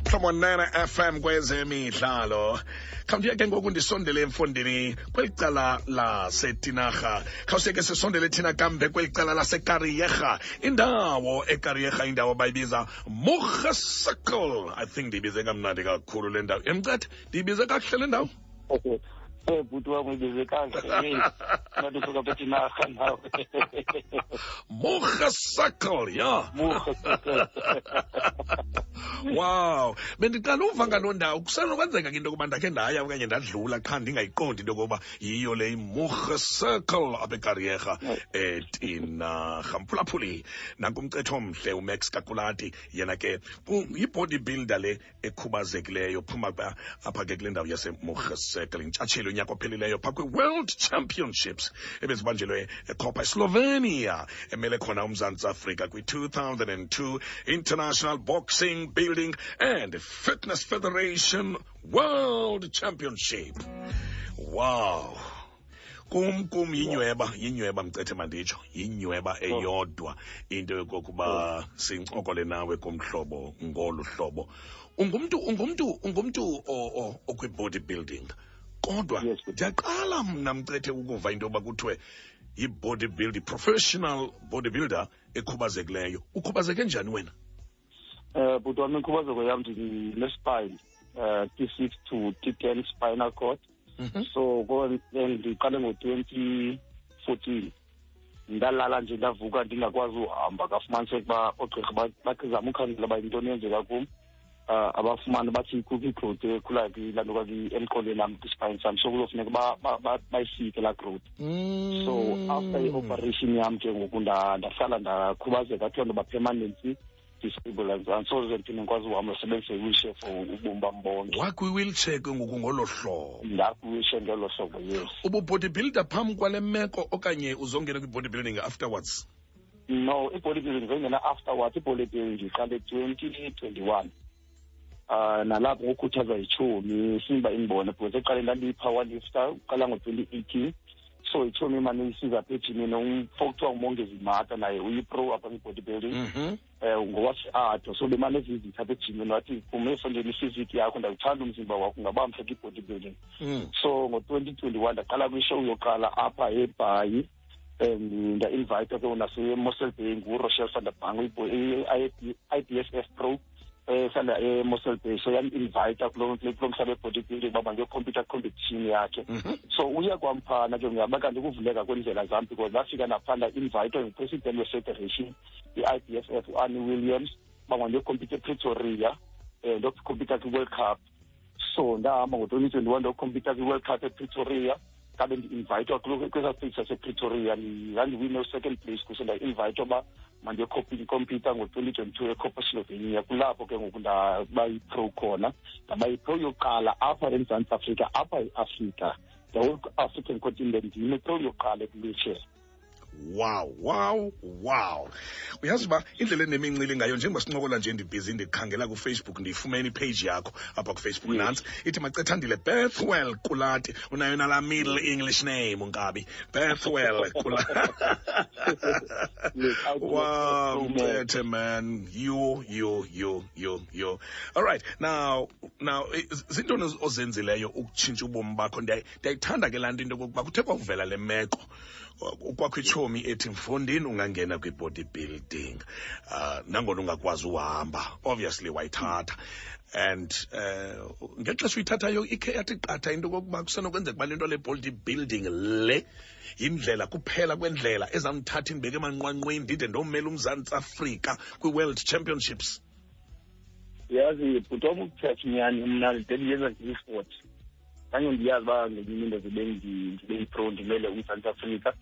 Mhlobo 9 FM kwezemidlalo. Khawundiye ke ngoku ndisondele emfondini kweli cala laseTinarha. Khawuseke sisondele thina kambe kweli cala laseKarieha. Indawo eKarieha, indawo abayibiza Mugge Circle. I think ndiyibize kamnandi kakhulu le ndawo. Emcethe, ndiyibize kakuhle le ndawo? Okay. Bhuti wam, uyibize kakuhle. Hey, ngathi usuka phethe inarha nawe. Mugge Circle, ya. Mugge Circle. Wow, bendiqala uva ngaloo ndawo. Kusenokwenzeka ke into yokuba ndakhe ndaya okanye ndadlula qha ndingayiqondi into yokuba yiyo le iMugge Circle apha eKarieha eTinarha. Mphulaphuli, nanku umcetho omhle uMax Kakulati, yena ke yi-body builder le ekhubazekileyo, phuma apha ke kule ndawo yaseMugge Circle, intshatsheli unyaka ophelileyo phaa kwi-World Championships ebezibanjelwe eKopa, eSlovenia, emele khona uMzantsi Afrika kwi-2002 International Boxing Building and Fitness Federation World Championship. Wow. Kum yinyweba mcethe, manditsho yinyweba eyodwa into yokokuba sincokole nawe kumhlobo ngolu hlobo. Ungumntu okwi-body building, kodwa ndiyaqala mna mcethe ukuva into yoba kuthiwe yi-body building, professional bodybuilder ekhubazekileyo. Ukhubazeke njani wena? Bhuti wami, inkhubazeko yam ndine-spine, T6 to T10 spinal cord. So ndiqale ngo-2014, ndalala nje, ndavuka ndingakwazi uhamba. Kafumaniseka uba oogqirha bazama ukhangela uba yintoni eyenzeka kum, abafumane, bathi kukho igrowth ekhulayo kulaa nto emqolweni am, kwispine sam, so kuzofuneka bayisike laa growth. So after i-operation yam ke ngoku ndahlala ndakhubazeka, kuthiwa ndoba permanently disabled, andisoze ndiphinde ndikwazi uhamba, ndisebenzise i-wheelchair for ubomi bam bonke. Wakwi-wheelchair ke ngoku ngolo hlobo? Ndakwi-wheelchair ngelo hlobo, yes. Ubu-bodybuilder phambi kwale meko okanye uzongena kwi-bodybuilding afterwards? No, i-bodybuilding zongena afterwards. I-bodybuilding ndiqale 2021, nalapho ngokukhuthazwa yitshomi simba indibone, because ekuqaleni ndandiyi-power lifter uqala ngo-2018. So itshomi imane isiza apha ejimini, umfo kuthiwa nguMongezi Mata, naye uyi-pro apha kwi-bodybuilding, ngowase-Ado. So bemane evizitha apha ejimini, wathi kum, "Efondeni i-physique yakho ndawuthanda, umzimba wakho ungaba mhle kwi-bodybuilding." So ngo-2021 ndaqala kwishow yokuqala apha eBhayi, and nda-invayithwa ke naseMossel Bay nguRochelle van der Bang, i-IBSF pro ehlala eMossel Bay. So yam-invayitha kulo mhlaba we-bodybuilding uba mandiyokhompyutha competition yakhe. So uye kwamphana ke ngiyaba kanti ukuvuleka kweendlela zam, because ndafika naphaa nda-invayithwa ngupresident we-federation i-IBSF, uArnie Williams, uba mandiyokhompyutha ePretoria, ndiyokhompyutha kwi-World Cup. So ndahamba ngo-2021, ndiyokhompyutha kwi-World Cup ePretoria. Kabe ndi-invayithwa kwesaa stage sasePretoria, ndandiwine u-second place kuso. Nda-invayithwa uba mandiyokhompyutha ngo-2022 eKoper, Slovenia. Kulapho ke ngoku ndaba yi-pro khona, ndaba yi-pro yokuqala apha eMzantsi Afrika, apha eAfrika, the whole African continent, ndim i-pro yokuqala ekwi-wheelchair. Wow! Uyazi uba indlela enemincili ngayo, njengoba sincokola nje ndibhizi ndikhangela kuFacebook, ndiyifumene ipage yakho apha kuFacebook. Nantsi ithi Macethandile Bethwell Kulati. Unayo nalaa middle English name, unkabi Bethwell Kulati. Wow, Mcethe man, you you you you you All right, now zintoni ozenzileyo ukutshintsha ubomi bakho? Ndiyayithanda ke laa nto, into yokokuba kuthe kwakuvela le meko kwakho itshomi ethi, "Mfondini, ungangena kwi-body building nangona ungakwazi uhamba." Obviously wayithatha, and ngexesha uyithathayo ikhe yathi qatha into okokuba kusenokwenzeka uba le nto le body building le yindlela kuphela kwendlela ezamthatha indibeke emanqwanqweni, ndide ndomela uMzantsi Afrika kwi-World Championships? Yazi bhuti wam, ukuthetha inyani, mna le ndiyenza ndiyi-sport, kanye ndiyazi uba ngenye imini ndibe ndibe yi-pro, ndimele uMzantsi Afrika,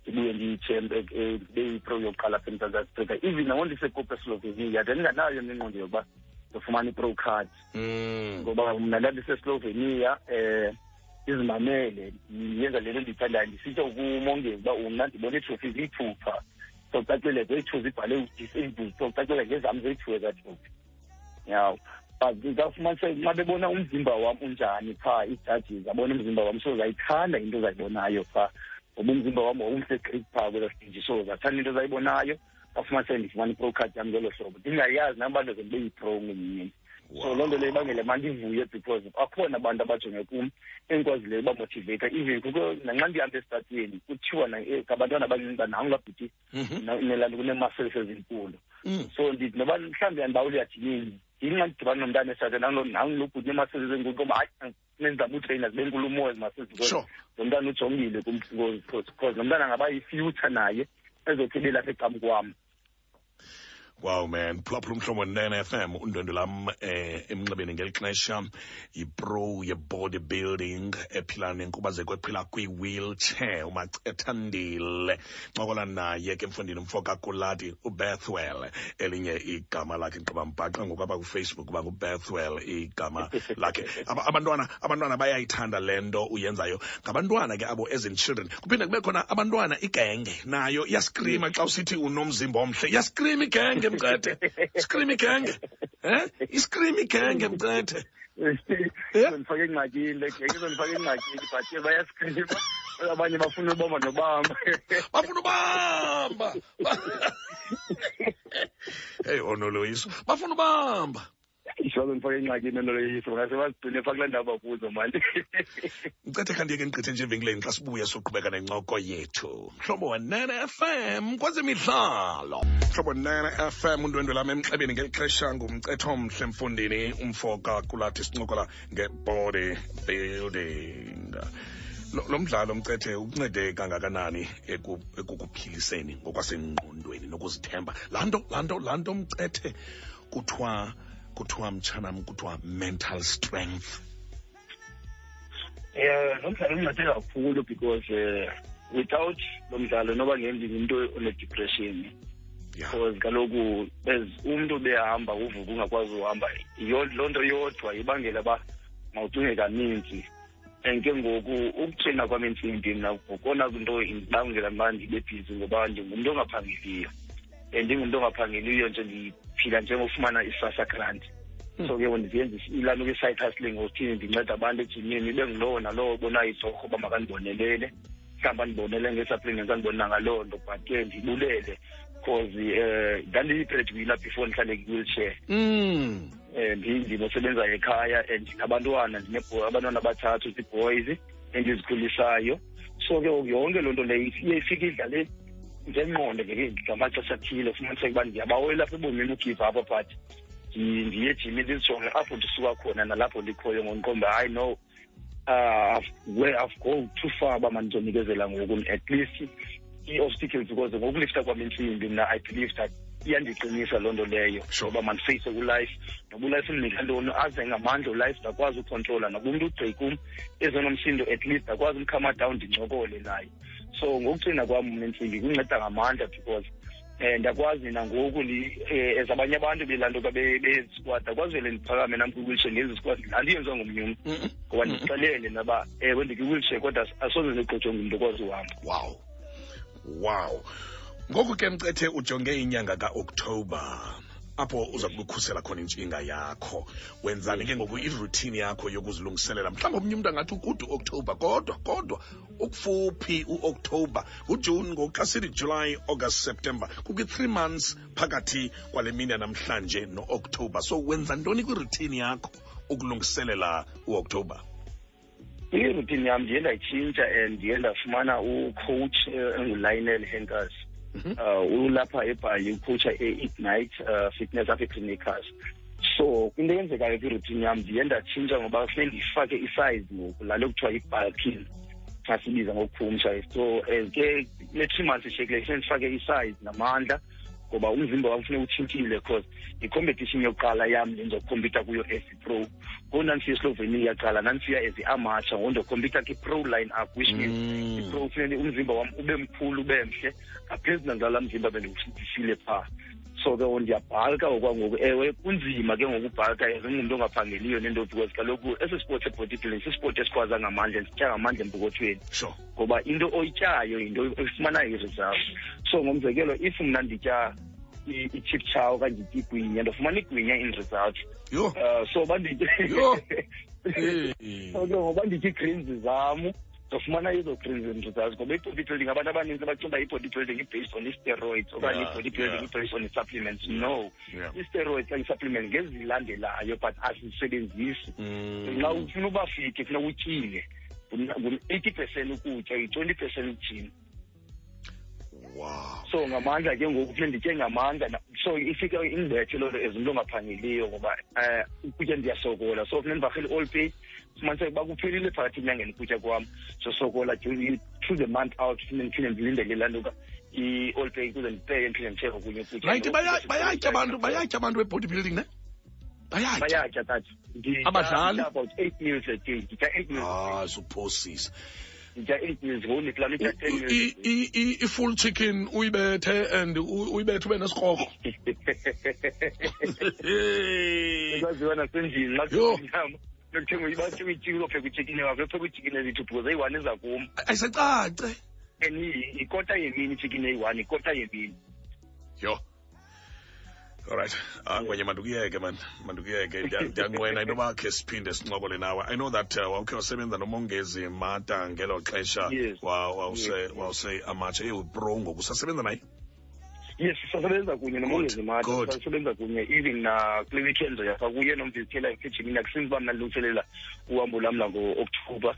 ndibuye ndiyithembe, ndibe yi-pro yokuqala apha eMzantsi Afrika. Even nango ndiseKoper, eSlovenia, ndandinganayo mna ingqondo yokuba ndifumana i-pro card, ngoba mna ndandiseslovenia, izimamele, ndiyenza le nto ndiyithandayo. Ndisitsho kuMongezi uba mna ndibona iitrophy ziyi-two phaa, so kucacile zeyi-two zibhale u-disabled, so kucacile ngezam zeyi-two ezaa trophy yaw. But kafumaniseka nxa bebona umzimba wam unjani phaa, ii-judges abona umzimba wam, so zayithanda into zayibonayo phaa, ngoba umzimba wam wawumhle gqithi phaa kwelaa stage. So zathanda into zayibonayo, kafumaniseka ndifumana i-pro card yam ngelo hlobo, ndingayazi nam uba ndize ndibe yi-pro ngenye imini. So loo nto leyo ibangele mandivuye because akhona abantu abajonge kum endikwazileyo ubamotiveyitha. Even kukho nanxa ndihamba esitratweni kuthiwa ngabantwana abancinci uba nangu laa bhuti nelaa kunee-muscles ezinkulu. So ndithi noba mhlawumbi andibawuli uyajimini, yinxa ndidibana nomntana esitratweni nangu lo bhuti nee-muscles ezinkulu, ngoba hayi, nenzama utreyina zibe nkulu umoya ezi muscles because lo mntana ujongile kum, because lo mntana angaba yi-future naye ezothi ibe lapha ecam kwam. Wow man, phulaphula Umhlobo 9 FM, undwendwe lam emnxebeni ngeli xesha yipro ye-bodybuilding ephila nenkubazeko, ephila kwi-wheelchair, uMacethandile. Ncokola naye ke mfundini, umfo kaKulati, uBethwell elinye igama lakhe. Gqiba mbhaqa ngoku apha kuFacebook uba nguBethwell igama lakhe. Abantwana bayayithanda le nto uyenzayo. Ngabantwana ke abo, as in children. Kuphinde kube khona abantwana, igenge nayo iyaskrima xa usithi unomzimba omhle. Iyaskrima igenge, Mcethe. Scream igenge. Iscream igenge, Mcethe. Izondifaka engxakini le genge, izondifaka engxakini, but ke bayaskrima. Abanye bafuna ubamba nobamba. Bafuna ubamba. Hey, onoloyiso. Bafuna ubamba. Izondifaka engxakini onoloyiso, ngase bazigcine phaa kulaa ndawo bakuzo mani. Mcethe, khandiye ke ndigqithe nje evenkileni, xa sibuya soqhubeka nencoko yethu. Mhlobo wa-9 FM kwezemidlalo. Mhlobo 9 FM, undwendwe lam emxebeni ngeli xesha nguMcethe omhle mfundini, umfo kaKulathi, sincokola nge-body building. Lo mdlalo, Mcethe, ukuncede kangakanani ekukuphiliseni ngokwasengqondweni nokuzithemba? Laa nto Mcethe, kuthiwa mtshanam, kuthiwa mental strength. Lo mdlalo uncede kakhulu because without lo mdlalo noba ngendingumntu one-depression. Because kaloku as umntu behamba uvuka ungakwazi uhamba, loo nto yodwa ibangela uba mawucinge kaninzi. And ke ngoku ukutreyina kwam intsimbi mna ngokona nto indibangela uba ndibe bhizi, ngoba ndingumntu ongaphangeliyo, and ndingumntu ongaphangeliyo nje ndiphila njengofumana i-SASSA grant. So ke ndizenza ilaa nto kwi-side hustling, ngokuthini ndinceda abantu ejimini, ibe ngulowo nalowo obonayo itorho uba makandibonelele, mhlawumbi andibonele ngee-supplements, andibonela ngaloo nto. But ke ndibulele because ndandiyi-breadwinner before ndihlale kwi-wheelchair. Ndinosebenza ekhaya and ndinabantwana, abantwana abathathu, zii-boys endizikhulisayo. So ke ngoku yonke loo nto leyo iye ifike idlale ngengqondo ngamaxesha athile, ufumaniseke uba ndiyabawela apha ebomini ugive up, but ndiye ejimini ndizijonge apho ndisuka khona nalapho ndikhoyo, ngokuqonda hayi no, where I've go too far uba mandizonikezela ngoku. At least ii-obstacles, because ngokulifta kwam intsimbi mna I believe that iyandiqinisa loo nto leyo ngoba mandifeyise kulife, noba ulife undinika ntoni, aze ngamandla ulife ndakwazi ukhontrola, noba umntu ugqi kum ezonomsindo, at least ndakwazi umkhama down ndincokole naye. So ngokucina kwam mna intsimbi kunceda ngamandla because ndiyakwazi nangoku as abanye abantu belaa nto be-squat, ndakwazi vele ndiphakame nam kwi-wheelchair ndenze isquat laa nto yenziwa ngomnye umntu, ngoba ndixelele naba ewe ndikwi-wheelchair kodwa asoze ndigqojwe ngumntu okwazi uhamba. Wow, ngoku ke Mcethe, ujonge inyanga kaOktoba apho uza kubukhusela khona intshinga yakho. Wenzani ke ngoku iroutine yakho yokuzilungiselela? Mhlawumbi omnye umntu angathi ukude uOktoba, kodwa ukufuphi uOktoba, nguJuni ngoku. Xa sithi July, August, September, kukwi-3 months phakathi kwale mini yanamhlanje no-Oktoba. So wenza ntoni kwiroutine yakho ukulungiselela uOktoba? Iroutine yam ndiye ndayitshintsha and ndiye ndafumana ucoach enguLionel Henkers. Ulapha eBhayi, ucoacha e-Ignite Fitness apha eClinicas. So into eyenzekayo kwiroutine yam, ndiye ndatshintsha ngoba funeke ndifake isize ngoku, laa nto kuthiwa yi-bulking xa sibiza ngokukhumsha. So as ke kule 3 months ishiyekileyo funeke ndifake isize namandla, ngoba umzimba wam funeka utshintshile, because yicompetition yokuqala yam le ndizokhompyutha kuyo as i-pro. Ngoku ndandisiya eSlovenia kuqala, ndandisiya as i-amateur, ngoku ndizokhompyutha kwi-pro line up, which means i-pro funeke umzimba wam ube mkhulu, ube mhle ngaphezu nalaa mzimba bendifile phaa. So ke ndiyabhalka okwangoku. Ewe, kunzima ke ngoku ubhalka as ungumntu ongaphangeliyo nento, because kaloku esi sport se-bodybuilding sisipoti esikhwaza ngamandla, sitya ngamandla empokothweni, ngoba into oyityayo yinto efumanayo i-result. So ngomzekelo, if mna nditya i-chip chow okanye nditya igwinya, ndofumana igwinya in result. Yho. So banditye Yho. So ke ngoba nditya ii-greens zam, Ndofumana ezo crazy results, ngoba i-body building, abantu abaninzi bacinga uba i-body building i-based on i-steroids okanye i-body building i-based on i-supplements. No, i-steroids okanye i-supplements ngezilandelayo, but azisebenzisi. Xa ufuna uba fit, funeka utyile ngu-80% ukutya, yi-20% ujim. So ngamandla ke ngoku, funeka nditye ngamandla. So ifike indibethe loo nto as umntu ongaphangeliyo, ngoba ukutya ndiyasokola. So funeka ndivarhele i-all pay, fumaniseke uba kuphelile phakathi enyangeni ukutya kwam. So sokola through the month out, funeka ndiphinde ndilindele laa nto i-all pay ukuze ndipeye, ndiphinde ndithenge okunye ukutya. Right, bayatya abantu, bayatya abantu be-body building, ne? Bayatya. Bayatya, tata. Abadlali? Nditya about 8 meals a day. Nditya 8 meals. Ah, suphosisa. Nditya 8 meals, ngoku ndiplana utya 10 meals. I-full chicken uyibethe and uyibethe ube nesikrokro. Ekwaziwa nasendlini, xa Yho. kuyinyama. Nokuthenga uyibathi uyityike, uzopheka uchicken wakho, uyopheka uchicken ezithu because eyi-one iza kum. Ayisecace. And yikota yemini ichicken eyi-one, yikota yemini. Yho. All right. Ngwenye, mandukuyeke man, mandukuyeke. Ndiyanqwena into yoba khe siphinde sincokole nawe. I know that wawukhe wasebenza noMongezi Mata ngelo xesha. Yes. Wawuse amatshe ewu-pro ngoku. Usasebenza naye? Yes, sisasebenza kunye noMongezi Mata. Good. Sisasebenza kunye even na kule weekend yapha kuye nomvizithela ejimini, akusinzi uba mna ndilungiselela uhambo lam lango-October.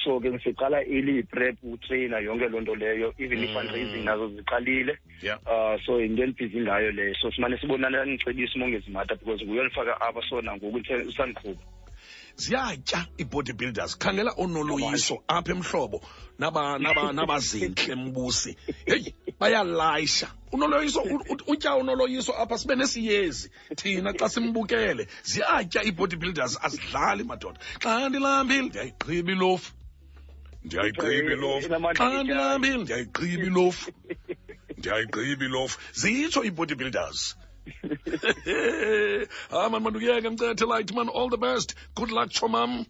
So ke siqala early prep, utrainer, yonke loo nto leyo, even i-fundraising nazo ziqalile. So yinto endibhizi ngayo leyo. So simane sibonana, ndicebisa uMongezi Mata because nguye olifaka apha, so nangoku usandiqhuba. Ziyatya i-bodybuilders. Khangela onoloyiso apha emhlobo nabazintle mbusi. Hey, bayalayisha. Unoloyiso, utya unoloyiso apha sibe nesiyezi thina xa simbukele. Ziyatya i-bodybuilders, azidlali madoda. Xa ndilambile ndiyayigqiba ilofu. Ndiyayigqiba ilofu. Inamandla Xa ndilambile ndiyayigqiba ilofu. Ndiyayigqiba ilofu. Zitsho i-bodybuilders. Man, mandukuyeke mcethe light man, all the best. Good luck, chomam.